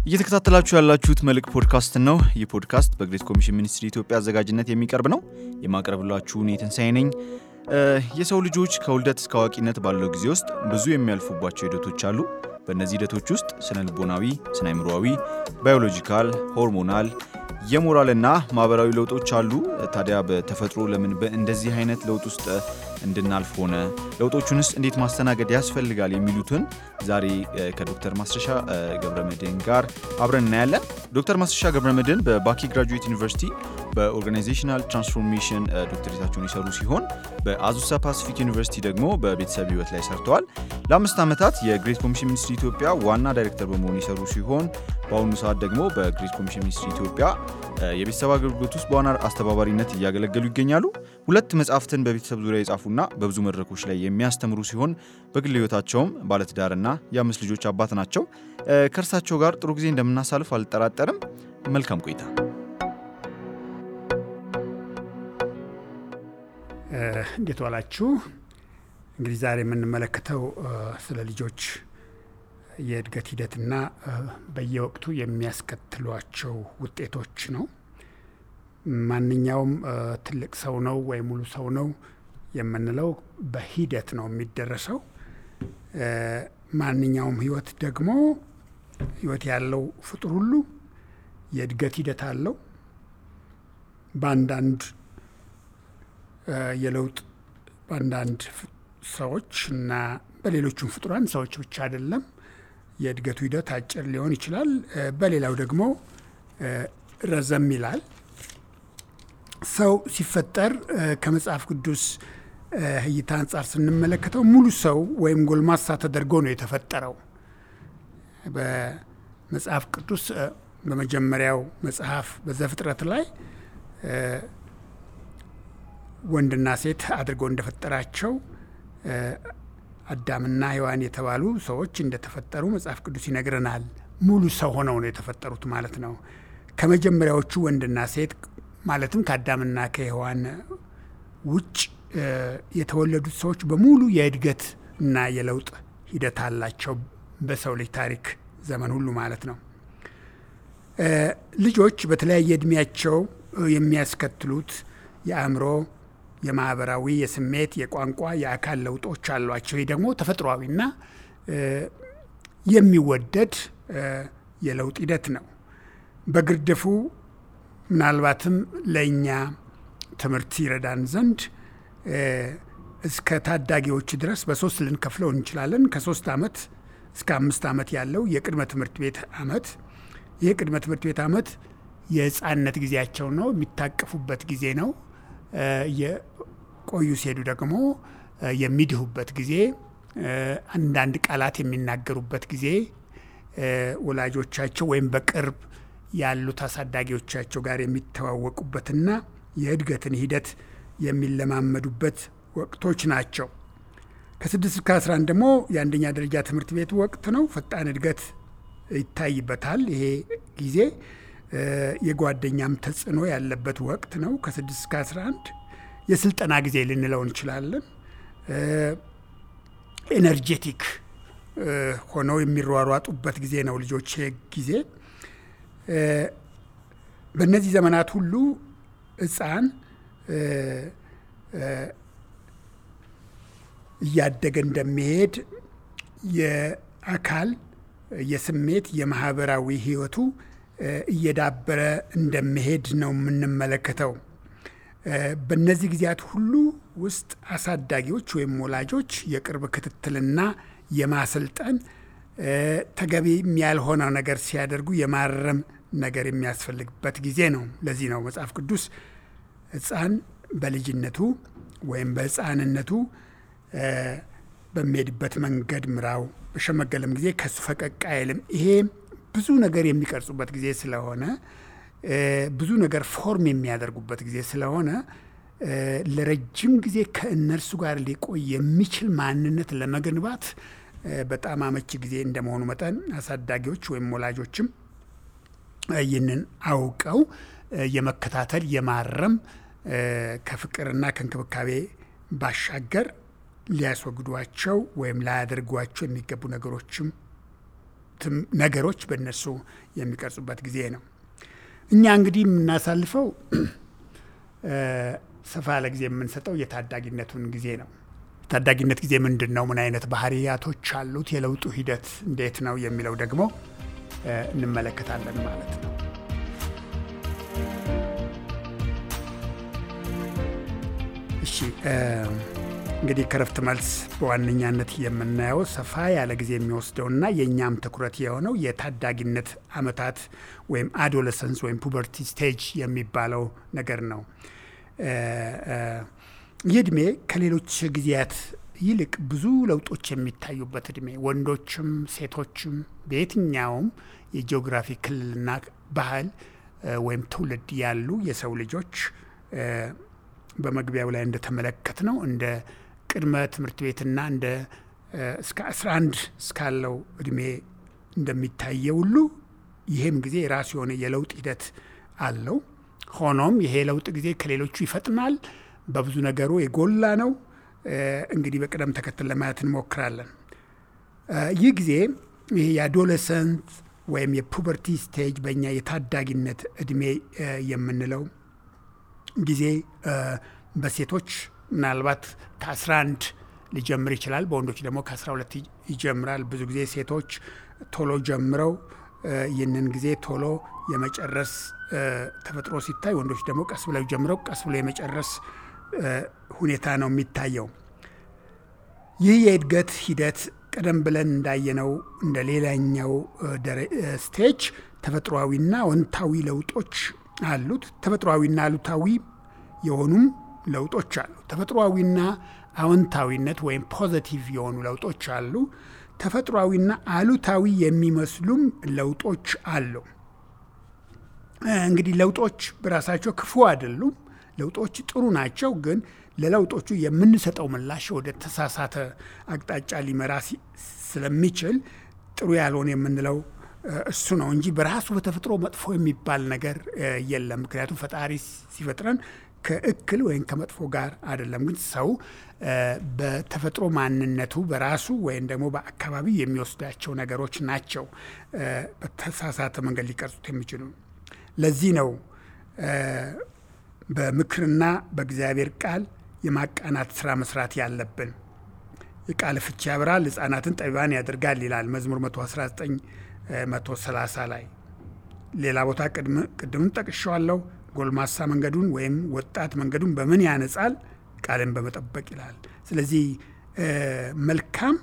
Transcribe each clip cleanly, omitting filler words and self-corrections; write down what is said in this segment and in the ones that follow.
እየተከታተላችሁ ያላችሁት መልክ ፖድካስት ነው። ይህ ፖድካስት በግሬት ኮሚሽን ሚኒስትሪ ኢትዮጵያ አዘጋጅነት የሚቀርብ ነው። የማቀርብላችሁ እኔ ትንሳኤ ነኝ። የሰው ልጆች ከውልደት እስከ አዋቂነት ባለው ጊዜ ውስጥ ብዙ የሚያልፉባቸው ሂደቶች አሉ። በእነዚህ ሂደቶች ውስጥ ስነ ልቦናዊ፣ ስነ አእምሮአዊ፣ ባዮሎጂካል፣ ሆርሞናል፣ የሞራልና ማህበራዊ ለውጦች አሉ። ታዲያ በተፈጥሮ ለምን በእንደዚህ አይነት ለውጥ ውስጥ እንድናልፍ ሆነ? ለውጦቹንስ እንዴት ማስተናገድ ያስፈልጋል? የሚሉትን ዛሬ ከዶክተር ማስረሻ ገብረመድህን ጋር አብረን እናያለን። ዶክተር ማስረሻ ገብረመድህን በባኪ ግራጁዌት ዩኒቨርሲቲ በኦርጋናይዜሽናል ትራንስፎርሜሽን ዶክተሬታቸውን ይሰሩ ሲሆን በአዙሳ ፓሲፊክ ዩኒቨርሲቲ ደግሞ በቤተሰብ ህይወት ላይ ሰርተዋል። ለ5 ዓመታት የግሬት ኮሚሽን ሚኒስትሪ ኢትዮጵያ ዋና ዳይሬክተር በመሆን ይሰሩ ሲሆን በአሁኑ ሰዓት ደግሞ በግሬት ኮሚሽን ሚኒስትሪ ኢትዮጵያ የቤተሰብ አገልግሎት ውስጥ በዋና አስተባባሪነት እያገለገሉ ይገኛሉ። 2 መጽሐፍትን በቤተሰብ ዙሪያ የጻፉና በብዙ መድረኮች ላይ የሚያስተምሩ ሲሆን በግል ህይወታቸውም ባለትዳርና የ5 ልጆች አባት ናቸው። ከእርሳቸው ጋር ጥሩ ጊዜ እንደምናሳልፍ አልጠራጠርም። መልካም ቆይታ። እንዴት ዋላችሁ? እንግዲህ ዛሬ የምንመለከተው ስለ ልጆች የእድገት ሂደትና በየወቅቱ የሚያስከትሏቸው ውጤቶች ነው። ማንኛውም ትልቅ ሰው ነው ወይ ሙሉ ሰው ነው የምንለው በሂደት ነው የሚደረሰው። ማንኛውም ህይወት ደግሞ ህይወት ያለው ፍጡር ሁሉ የእድገት ሂደት አለው። በአንዳንድ የለውጥ በአንዳንድ ሰዎች እና በሌሎቹም ፍጡራን ሰዎች ብቻ አይደለም የእድገቱ ሂደት አጭር ሊሆን ይችላል። በሌላው ደግሞ ረዘም ይላል። ሰው ሲፈጠር ከመጽሐፍ ቅዱስ እይታ አንጻር ስንመለከተው ሙሉ ሰው ወይም ጎልማሳ ተደርጎ ነው የተፈጠረው። በመጽሐፍ ቅዱስ በመጀመሪያው መጽሐፍ በዘፍጥረት ላይ ወንድና ሴት አድርጎ እንደፈጠራቸው አዳምና ሔዋን የተባሉ ሰዎች እንደተፈጠሩ መጽሐፍ ቅዱስ ይነግረናል። ሙሉ ሰው ሆነው ነው የተፈጠሩት ማለት ነው። ከመጀመሪያዎቹ ወንድና ሴት ማለትም ከአዳምና ከሔዋን ውጭ የተወለዱት ሰዎች በሙሉ የእድገት እና የለውጥ ሂደት አላቸው በሰው ልጅ ታሪክ ዘመን ሁሉ ማለት ነው። ልጆች በተለያየ እድሜያቸው የሚያስከትሉት የአእምሮ፣ የማህበራዊ፣ የስሜት፣ የቋንቋ፣ የአካል ለውጦች አሏቸው። ይህ ደግሞ ተፈጥሯዊና የሚወደድ የለውጥ ሂደት ነው። በግርድፉ ምናልባትም ለእኛ ትምህርት ይረዳን ዘንድ እስከ ታዳጊዎች ድረስ በ3 ልንከፍለው እንችላለን። ከ3 ዓመት እስከ 5 ዓመት ያለው የቅድመ ትምህርት ቤት ዓመት። ይህ ቅድመ ትምህርት ቤት ዓመት የህፃንነት ጊዜያቸው ነው፣ የሚታቀፉበት ጊዜ ነው። የቆዩ ሲሄዱ ደግሞ የሚድሁበት ጊዜ፣ አንዳንድ ቃላት የሚናገሩበት ጊዜ፣ ወላጆቻቸው ወይም በቅርብ ያሉት አሳዳጊዎቻቸው ጋር የሚተዋወቁበትና የእድገትን ሂደት የሚለማመዱበት ወቅቶች ናቸው። ከ6 እስከ 11 ደግሞ የአንደኛ ደረጃ ትምህርት ቤት ወቅት ነው። ፈጣን እድገት ይታይበታል። ይሄ ጊዜ የጓደኛም ተጽዕኖ ያለበት ወቅት ነው። ከ6 እስከ 11 የስልጠና ጊዜ ልንለው እንችላለን። ኤነርጄቲክ ሆነው የሚሯሯጡበት ጊዜ ነው ልጆች ጊዜ። በእነዚህ ዘመናት ሁሉ ህፃን እያደገ እንደሚሄድ የአካል፣ የስሜት፣ የማህበራዊ ህይወቱ እየዳበረ እንደሚሄድ ነው የምንመለከተው። በእነዚህ ጊዜያት ሁሉ ውስጥ አሳዳጊዎች ወይም ወላጆች የቅርብ ክትትልና የማሰልጠን ተገቢ ያልሆነ ነገር ሲያደርጉ የማረም ነገር የሚያስፈልግበት ጊዜ ነው። ለዚህ ነው መጽሐፍ ቅዱስ ህፃን በልጅነቱ ወይም በህፃንነቱ በሚሄድበት መንገድ ምራው፣ በሸመገለም ጊዜ ከሱ ፈቀቅ አይልም። ይሄ ብዙ ነገር የሚቀርጹበት ጊዜ ስለሆነ፣ ብዙ ነገር ፎርም የሚያደርጉበት ጊዜ ስለሆነ ለረጅም ጊዜ ከእነርሱ ጋር ሊቆይ የሚችል ማንነት ለመገንባት በጣም አመቺ ጊዜ እንደመሆኑ መጠን አሳዳጊዎች ወይም ወላጆችም ይህንን አውቀው የመከታተል የማረም ከፍቅርና ከእንክብካቤ ባሻገር ሊያስወግዷቸው ወይም ላያደርጓቸው የሚገቡ ነገሮችም ነገሮች በእነሱ የሚቀርጹበት ጊዜ ነው። እኛ እንግዲህ የምናሳልፈው ሰፋ ያለ ጊዜ የምንሰጠው የታዳጊነቱን ጊዜ ነው። ታዳጊነት ጊዜ ምንድን ነው? ምን አይነት ባህሪያቶች አሉት? የለውጡ ሂደት እንዴት ነው የሚለው ደግሞ እንመለከታለን ማለት ነው። እሺ እንግዲህ ከረፍት መልስ በዋነኛነት የምናየው ሰፋ ያለ ጊዜ የሚወስደውና የእኛም ትኩረት የሆነው የታዳጊነት ዓመታት ወይም አዶለሰንስ ወይም ፑበርቲ ስቴጅ የሚባለው ነገር ነው። ይህ ዕድሜ ከሌሎች ጊዜያት ይልቅ ብዙ ለውጦች የሚታዩበት ዕድሜ፣ ወንዶችም ሴቶችም በየትኛውም የጂኦግራፊ ክልልና ባህል ወይም ትውልድ ያሉ የሰው ልጆች በመግቢያው ላይ እንደተመለከት ነው እንደ ቅድመ ትምህርት ቤትና እንደ እስከ 11 እስካለው ዕድሜ እንደሚታየው ሁሉ ይህም ጊዜ የራሱ የሆነ የለውጥ ሂደት አለው። ሆኖም ይሄ ለውጥ ጊዜ ከሌሎቹ ይፈጥናል፣ በብዙ ነገሩ የጎላ ነው። እንግዲህ በቅደም ተከተል ለማየት እንሞክራለን። ይህ ጊዜ ይሄ የአዶለሰንት ወይም የፑበርቲ ስቴጅ በእኛ የታዳጊነት ዕድሜ የምንለው ጊዜ በሴቶች ምናልባት ከ11 ሊጀምር ይችላል፣ በወንዶች ደግሞ ከ12 ይጀምራል። ብዙ ጊዜ ሴቶች ቶሎ ጀምረው ይህንን ጊዜ ቶሎ የመጨረስ ተፈጥሮ ሲታይ፣ ወንዶች ደግሞ ቀስ ብለው ጀምረው ቀስ ብለው የመጨረስ ሁኔታ ነው የሚታየው። ይህ የእድገት ሂደት ቀደም ብለን እንዳየነው እንደ ሌላኛው ስቴጅ ተፈጥሯዊና አዎንታዊ ለውጦች አሉት። ተፈጥሯዊና አሉታዊ የሆኑም ለውጦች አሉ። ተፈጥሯዊና አዎንታዊነት ወይም ፖዚቲቭ የሆኑ ለውጦች አሉ። ተፈጥሯዊና አሉታዊ የሚመስሉም ለውጦች አሉ። እንግዲህ ለውጦች በራሳቸው ክፉ አይደሉም። ለውጦች ጥሩ ናቸው። ግን ለለውጦቹ የምንሰጠው ምላሽ ወደ ተሳሳተ አቅጣጫ ሊመራ ስለሚችል ጥሩ ያልሆነ የምንለው እሱ ነው እንጂ በራሱ በተፈጥሮ መጥፎ የሚባል ነገር የለም። ምክንያቱም ፈጣሪ ሲፈጥረን ከእክል ወይም ከመጥፎ ጋር አይደለም። ግን ሰው በተፈጥሮ ማንነቱ በራሱ ወይም ደግሞ በአካባቢ የሚወስዳቸው ነገሮች ናቸው በተሳሳተ መንገድ ሊቀርጹት የሚችሉ። ለዚህ ነው በምክርና በእግዚአብሔር ቃል የማቃናት ስራ መስራት ያለብን። የቃል ፍቺ ያበራል፣ ሕፃናትን ጠቢባን ያደርጋል ይላል መዝሙር 119 130 ላይ። ሌላ ቦታ ቅድም ጠቅሼዋለሁ። ጎልማሳ መንገዱን ወይም ወጣት መንገዱን በምን ያነጻል? ቃልን በመጠበቅ ይላል። ስለዚህ መልካም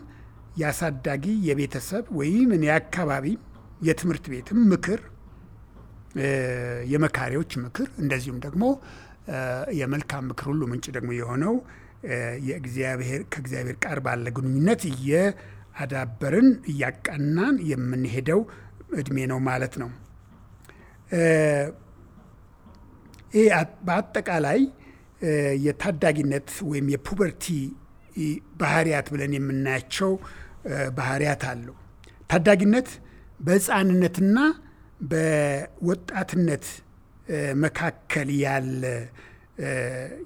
ያሳዳጊ የቤተሰብ ወይም የአካባቢ የትምህርት ቤትም ምክር፣ የመካሪዎች ምክር፣ እንደዚሁም ደግሞ የመልካም ምክር ሁሉ ምንጭ ደግሞ የሆነው ከእግዚአብሔር ጋር ባለ ግንኙነት እያዳበርን እያቃናን የምንሄደው እድሜ ነው ማለት ነው። ይህ በአጠቃላይ የታዳጊነት ወይም የፑበርቲ ባህሪያት ብለን የምናያቸው ባህሪያት አሉ። ታዳጊነት በሕፃንነትና በወጣትነት መካከል ያለ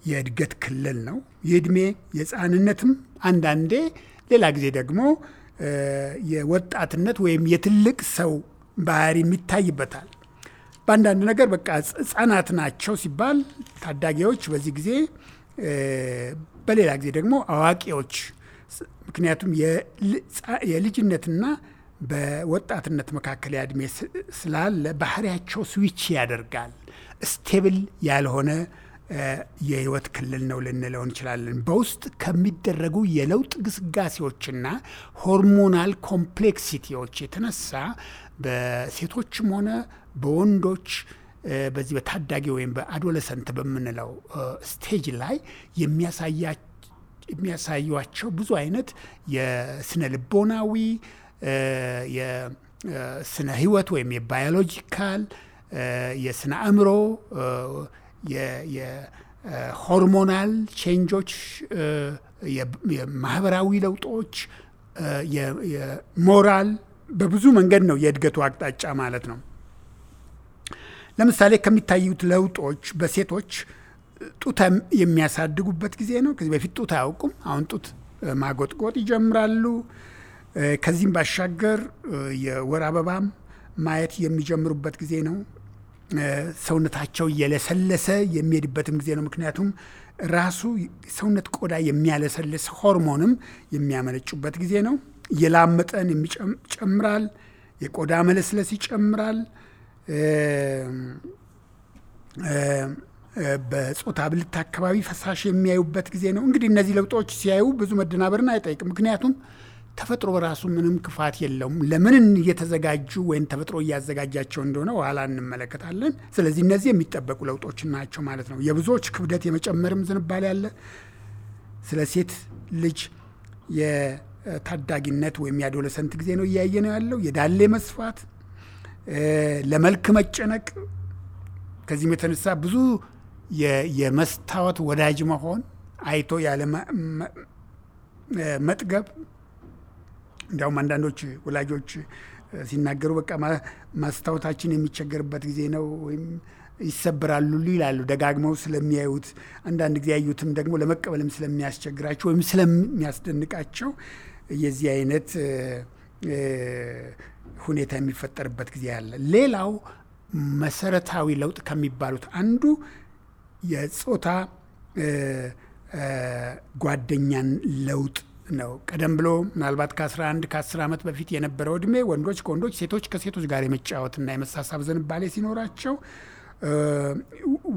የእድገት ክልል ነው። የእድሜ የሕፃንነትም አንዳንዴ ሌላ ጊዜ ደግሞ የወጣትነት ወይም የትልቅ ሰው ባህሪ የሚታይበታል። በአንዳንድ ነገር በቃ ሕፃናት ናቸው ሲባል ታዳጊዎች በዚህ ጊዜ፣ በሌላ ጊዜ ደግሞ አዋቂዎች። ምክንያቱም የልጅነትና በወጣትነት መካከል ያድሜ ስላለ ባህሪያቸው ስዊች ያደርጋል። ስቴብል ያልሆነ የህይወት ክልል ነው ልንለው እንችላለን። በውስጥ ከሚደረጉ የለውጥ ግስጋሴዎችና ሆርሞናል ኮምፕሌክሲቲዎች የተነሳ በሴቶችም ሆነ በወንዶች በዚህ በታዳጊ ወይም በአዶለሰንት በምንለው ስቴጅ ላይ የሚያሳዩቸው ብዙ አይነት የስነ ልቦናዊ፣ የስነ ህይወት ወይም የባዮሎጂካል፣ የስነ አእምሮ፣ የሆርሞናል ቼንጆች፣ የማህበራዊ ለውጦች፣ የሞራል በብዙ መንገድ ነው የእድገቱ አቅጣጫ ማለት ነው። ለምሳሌ ከሚታዩት ለውጦች በሴቶች ጡት የሚያሳድጉበት ጊዜ ነው። ከዚህ በፊት ጡት አያውቁም። አሁን ጡት ማጎጥጎጥ ይጀምራሉ። ከዚህም ባሻገር የወር አበባም ማየት የሚጀምሩበት ጊዜ ነው። ሰውነታቸው እየለሰለሰ የሚሄድበትም ጊዜ ነው። ምክንያቱም ራሱ ሰውነት ቆዳ የሚያለሰልስ ሆርሞንም የሚያመነጩበት ጊዜ ነው። የላብ መጠን ይጨምራል። የቆዳ መለስለስ ይጨምራል። በጾታ ብልት አካባቢ ፈሳሽ የሚያዩበት ጊዜ ነው። እንግዲህ እነዚህ ለውጦች ሲያዩ ብዙ መደናበርን አይጠይቅም። ምክንያቱም ተፈጥሮ በራሱ ምንም ክፋት የለውም። ለምን እየተዘጋጁ ወይም ተፈጥሮ እያዘጋጃቸው እንደሆነ ኋላ እንመለከታለን። ስለዚህ እነዚህ የሚጠበቁ ለውጦች ናቸው ማለት ነው። የብዙዎች ክብደት የመጨመርም ዝንባሌ አለ። ስለ ሴት ልጅ የታዳጊነት ወይም የአዶለሰንት ጊዜ ነው እያየ ነው ያለው። የዳሌ መስፋት፣ ለመልክ መጨነቅ፣ ከዚህም የተነሳ ብዙ የመስታወት ወዳጅ መሆን፣ አይቶ ያለ መጥገብ። እንዲያውም አንዳንዶች ወላጆች ሲናገሩ በቃ ማስታወታችን የሚቸገርበት ጊዜ ነው ወይም ይሰበራሉ ይላሉ፣ ደጋግመው ስለሚያዩት። አንዳንድ ጊዜ ያዩትም ደግሞ ለመቀበልም ስለሚያስቸግራቸው ወይም ስለሚያስደንቃቸው የዚህ አይነት ሁኔታ የሚፈጠርበት ጊዜ አለ። ሌላው መሰረታዊ ለውጥ ከሚባሉት አንዱ የጾታ ጓደኛን ለውጥ ነው። ቀደም ብሎ ምናልባት ከ11 ከ10 ዓመት በፊት የነበረው እድሜ ወንዶች ከወንዶች ሴቶች ከሴቶች ጋር የመጫወትና የመሳሳብ ዝንባሌ ሲኖራቸው፣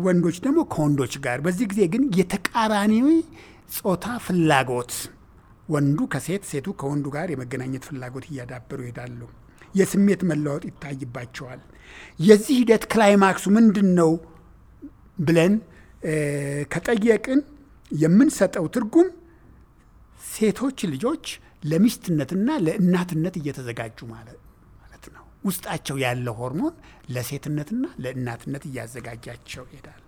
ወንዶች ደግሞ ከወንዶች ጋር። በዚህ ጊዜ ግን የተቃራኒ ጾታ ፍላጎት፣ ወንዱ ከሴት ሴቱ ከወንዱ ጋር የመገናኘት ፍላጎት እያዳበሩ ይሄዳሉ። የስሜት መለወጥ ይታይባቸዋል። የዚህ ሂደት ክላይማክሱ ምንድን ነው ብለን ከጠየቅን የምንሰጠው ትርጉም ሴቶች ልጆች ለሚስትነትና ለእናትነት እየተዘጋጁ ማለት ነው። ውስጣቸው ያለው ሆርሞን ለሴትነትና ለእናትነት እያዘጋጃቸው ይሄዳል።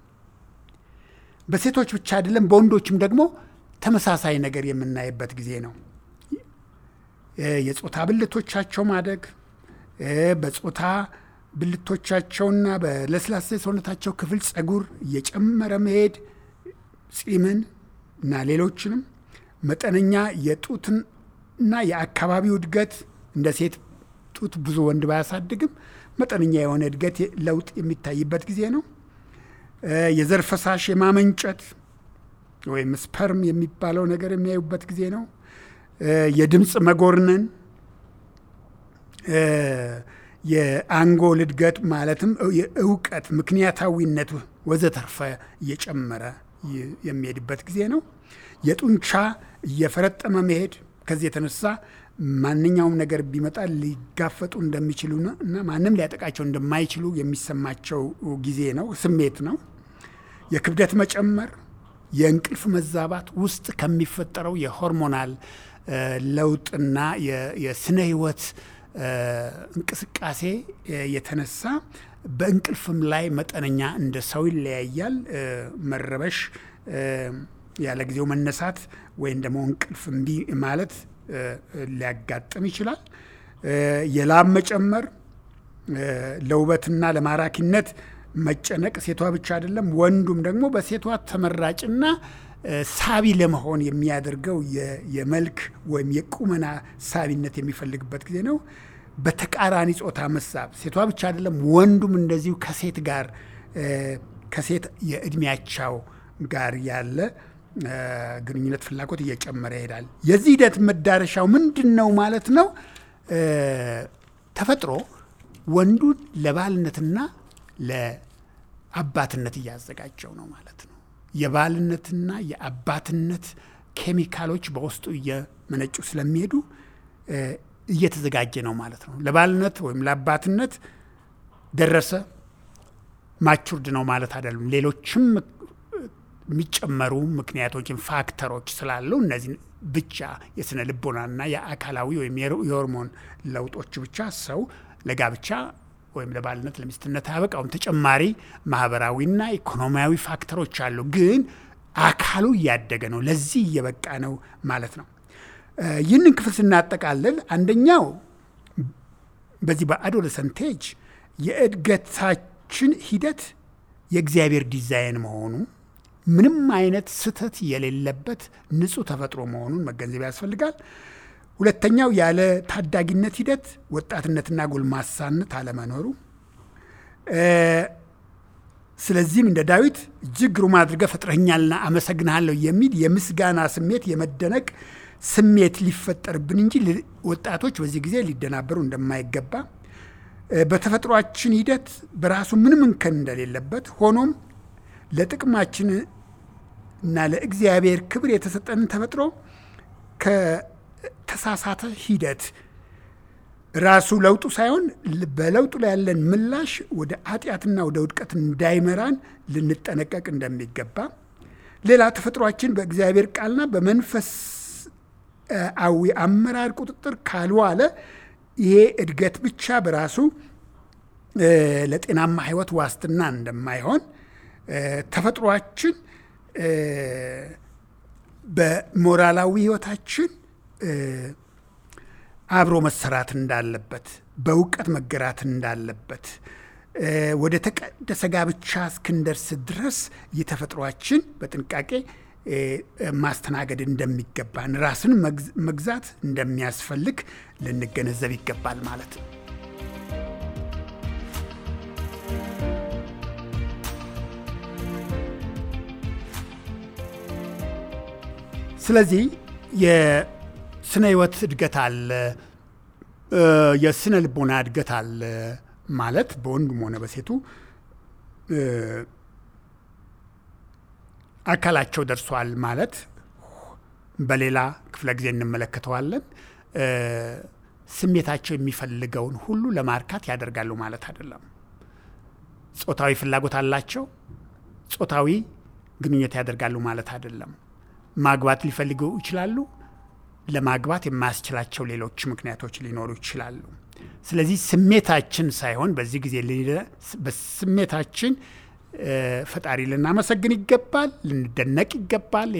በሴቶች ብቻ አይደለም፣ በወንዶችም ደግሞ ተመሳሳይ ነገር የምናይበት ጊዜ ነው። የጾታ ብልቶቻቸው ማደግ፣ በጾታ ብልቶቻቸውና በለስላሳ ሰውነታቸው ክፍል ጸጉር እየጨመረ መሄድ፣ ጺምን እና ሌሎችንም፣ መጠነኛ የጡትና የአካባቢው እድገት። እንደ ሴት ጡት ብዙ ወንድ ባያሳድግም መጠነኛ የሆነ እድገት ለውጥ የሚታይበት ጊዜ ነው። የዘር ፈሳሽ የማመንጨት ወይም ስፐርም የሚባለው ነገር የሚያዩበት ጊዜ ነው። የድምፅ መጎርነን፣ የአንጎል እድገት ማለትም የእውቀት ምክንያታዊነት ወዘተርፈ እየጨመረ የሚሄድበት ጊዜ ነው። የጡንቻ እየፈረጠመ መሄድ፣ ከዚህ የተነሳ ማንኛውም ነገር ቢመጣ ሊጋፈጡ እንደሚችሉና ማንም ሊያጠቃቸው እንደማይችሉ የሚሰማቸው ጊዜ ነው፣ ስሜት ነው። የክብደት መጨመር፣ የእንቅልፍ መዛባት ውስጥ ከሚፈጠረው የሆርሞናል ለውጥና የስነ ህይወት እንቅስቃሴ የተነሳ በእንቅልፍም ላይ መጠነኛ እንደ ሰው ይለያያል። መረበሽ፣ ያለ ጊዜው መነሳት ወይም ደግሞ እንቅልፍ እምቢ ማለት ሊያጋጥም ይችላል። የላብ መጨመር፣ ለውበትና ለማራኪነት መጨነቅ፣ ሴቷ ብቻ አይደለም ወንዱም ደግሞ በሴቷ ተመራጭና ሳቢ ለመሆን የሚያደርገው የመልክ ወይም የቁመና ሳቢነት የሚፈልግበት ጊዜ ነው። በተቃራኒ ጾታ መሳብ፣ ሴቷ ብቻ አይደለም ወንዱም እንደዚሁ ከሴት ጋር ከሴት የእድሜያቸው ጋር ያለ ግንኙነት ፍላጎት እየጨመረ ይሄዳል። የዚህ ሂደት መዳረሻው ምንድን ነው ማለት ነው? ተፈጥሮ ወንዱን ለባልነትና ለአባትነት እያዘጋጀው ነው ማለት ነው። የባልነትና የአባትነት ኬሚካሎች በውስጡ እየመነጩ ስለሚሄዱ እየተዘጋጀ ነው ማለት ነው። ለባልነት ወይም ለአባትነት ደረሰ፣ ማቹርድ ነው ማለት አይደለም። ሌሎችም የሚጨመሩ ምክንያቶችን ፋክተሮች ስላሉ እነዚህ ብቻ የስነ ልቦናና የአካላዊ ወይም የሆርሞን ለውጦች ብቻ ሰው ለጋብቻ ወይም ለባልነት ለሚስትነት አያበቃውም። ተጨማሪ ማህበራዊና ኢኮኖሚያዊ ፋክተሮች አሉ። ግን አካሉ እያደገ ነው፣ ለዚህ እየበቃ ነው ማለት ነው። ይህንን ክፍል ስናጠቃልል አንደኛው በዚህ በአዶለሰንት ኤጅ የእድገታችን ሂደት የእግዚአብሔር ዲዛይን መሆኑ፣ ምንም አይነት ስህተት የሌለበት ንጹህ ተፈጥሮ መሆኑን መገንዘብ ያስፈልጋል። ሁለተኛው ያለ ታዳጊነት ሂደት ወጣትነትና ጎልማሳነት አለመኖሩ። ስለዚህም እንደ ዳዊት እጅግ ግሩም አድርገህ ፈጥረኸኛልና አመሰግንሃለሁ የሚል የምስጋና ስሜት፣ የመደነቅ ስሜት ሊፈጠርብን እንጂ ወጣቶች በዚህ ጊዜ ሊደናበሩ እንደማይገባ፣ በተፈጥሯችን ሂደት በራሱ ምንም እንከን እንደሌለበት ሆኖም ለጥቅማችን እና ለእግዚአብሔር ክብር የተሰጠንን ተፈጥሮ ከተሳሳተ ሂደት ራሱ ለውጡ ሳይሆን በለውጡ ላይ ያለን ምላሽ ወደ ኃጢአትና ወደ ውድቀት እንዳይመራን ልንጠነቀቅ እንደሚገባ፣ ሌላ ተፈጥሯችን በእግዚአብሔር ቃልና በመንፈሳዊ አመራር ቁጥጥር ካልዋለ ይሄ እድገት ብቻ በራሱ ለጤናማ ሕይወት ዋስትና እንደማይሆን፣ ተፈጥሯችን በሞራላዊ ሕይወታችን አብሮ መሰራት እንዳለበት፣ በእውቀት መገራት እንዳለበት፣ ወደ ተቀደሰ ጋብቻ እስክንደርስ ድረስ የተፈጥሯችን በጥንቃቄ ማስተናገድ እንደሚገባን፣ ራስን መግዛት እንደሚያስፈልግ ልንገነዘብ ይገባል ማለት ነው። ስለዚህ የስነ ህይወት እድገት አለ፣ የስነ ልቦና እድገት አለ ማለት በወንዱም ሆነ በሴቱ አካላቸው ደርሷል ማለት በሌላ ክፍለ ጊዜ እንመለከተዋለን። ስሜታቸው የሚፈልገውን ሁሉ ለማርካት ያደርጋሉ ማለት አይደለም። ጾታዊ ፍላጎት አላቸው፣ ጾታዊ ግንኙነት ያደርጋሉ ማለት አይደለም። ማግባት ሊፈልጉ ይችላሉ፣ ለማግባት የማያስችላቸው ሌሎች ምክንያቶች ሊኖሩ ይችላሉ። ስለዚህ ስሜታችን ሳይሆን በዚህ ጊዜ በስሜታችን ፈጣሪ ልናመሰግን ይገባል፣ ልንደነቅ ይገባል።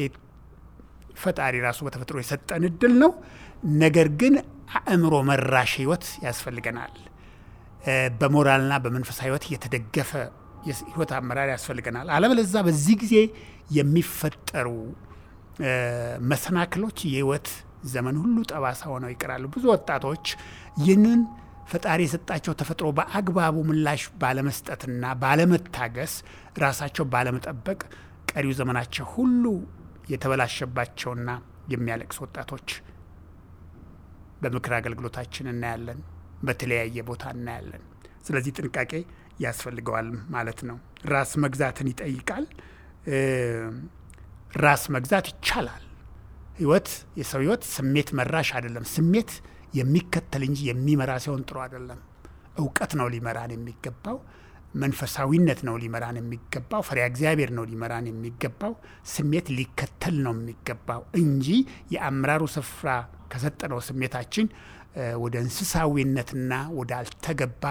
ፈጣሪ ራሱ በተፈጥሮ የሰጠን እድል ነው። ነገር ግን አእምሮ መራሽ ህይወት ያስፈልገናል። በሞራልና በመንፈሳዊ ህይወት የተደገፈ የህይወት አመራር ያስፈልገናል። አለበለዚያ በዚህ ጊዜ የሚፈጠሩ መሰናክሎች የህይወት ዘመን ሁሉ ጠባሳ ሆነው ይቀራሉ። ብዙ ወጣቶች ይህንን ፈጣሪ የሰጣቸው ተፈጥሮ በአግባቡ ምላሽ ባለመስጠትና ባለመታገስ፣ ራሳቸው ባለመጠበቅ ቀሪው ዘመናቸው ሁሉ የተበላሸባቸውና የሚያለቅሱ ወጣቶች በምክር አገልግሎታችን እናያለን፣ በተለያየ ቦታ እናያለን። ስለዚህ ጥንቃቄ ያስፈልገዋል ማለት ነው። ራስ መግዛትን ይጠይቃል። ራስ መግዛት ይቻላል። የሰው ህይወት ስሜት መራሽ አይደለም። ስሜት የሚከተል እንጂ የሚመራ ሲሆን ጥሩ አይደለም። እውቀት ነው ሊመራን የሚገባው። መንፈሳዊነት ነው ሊመራን የሚገባው። ፈሪሃ እግዚአብሔር ነው ሊመራን የሚገባው። ስሜት ሊከተል ነው የሚገባው እንጂ የአመራሩ ስፍራ ከሰጠነው ስሜታችን ወደ እንስሳዊነትና ወደ አልተገባ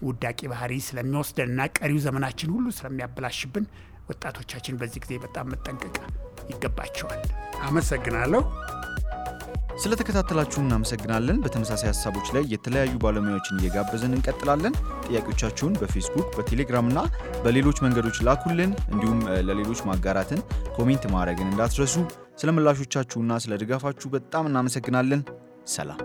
ውዳቂ ባህሪ ስለሚወስደንና ቀሪው ዘመናችን ሁሉ ስለሚያበላሽብን ወጣቶቻችን በዚህ ጊዜ በጣም መጠንቀቅ ይገባቸዋል። አመሰግናለሁ። ስለተከታተላችሁ እናመሰግናለን። በተመሳሳይ ሀሳቦች ላይ የተለያዩ ባለሙያዎችን እየጋበዝን እንቀጥላለን። ጥያቄዎቻችሁን በፌስቡክ፣ በቴሌግራም እና በሌሎች መንገዶች ላኩልን። እንዲሁም ለሌሎች ማጋራትን፣ ኮሜንት ማድረግን እንዳትረሱ። ስለ ምላሾቻችሁና ስለ ድጋፋችሁ በጣም እናመሰግናለን። ሰላም።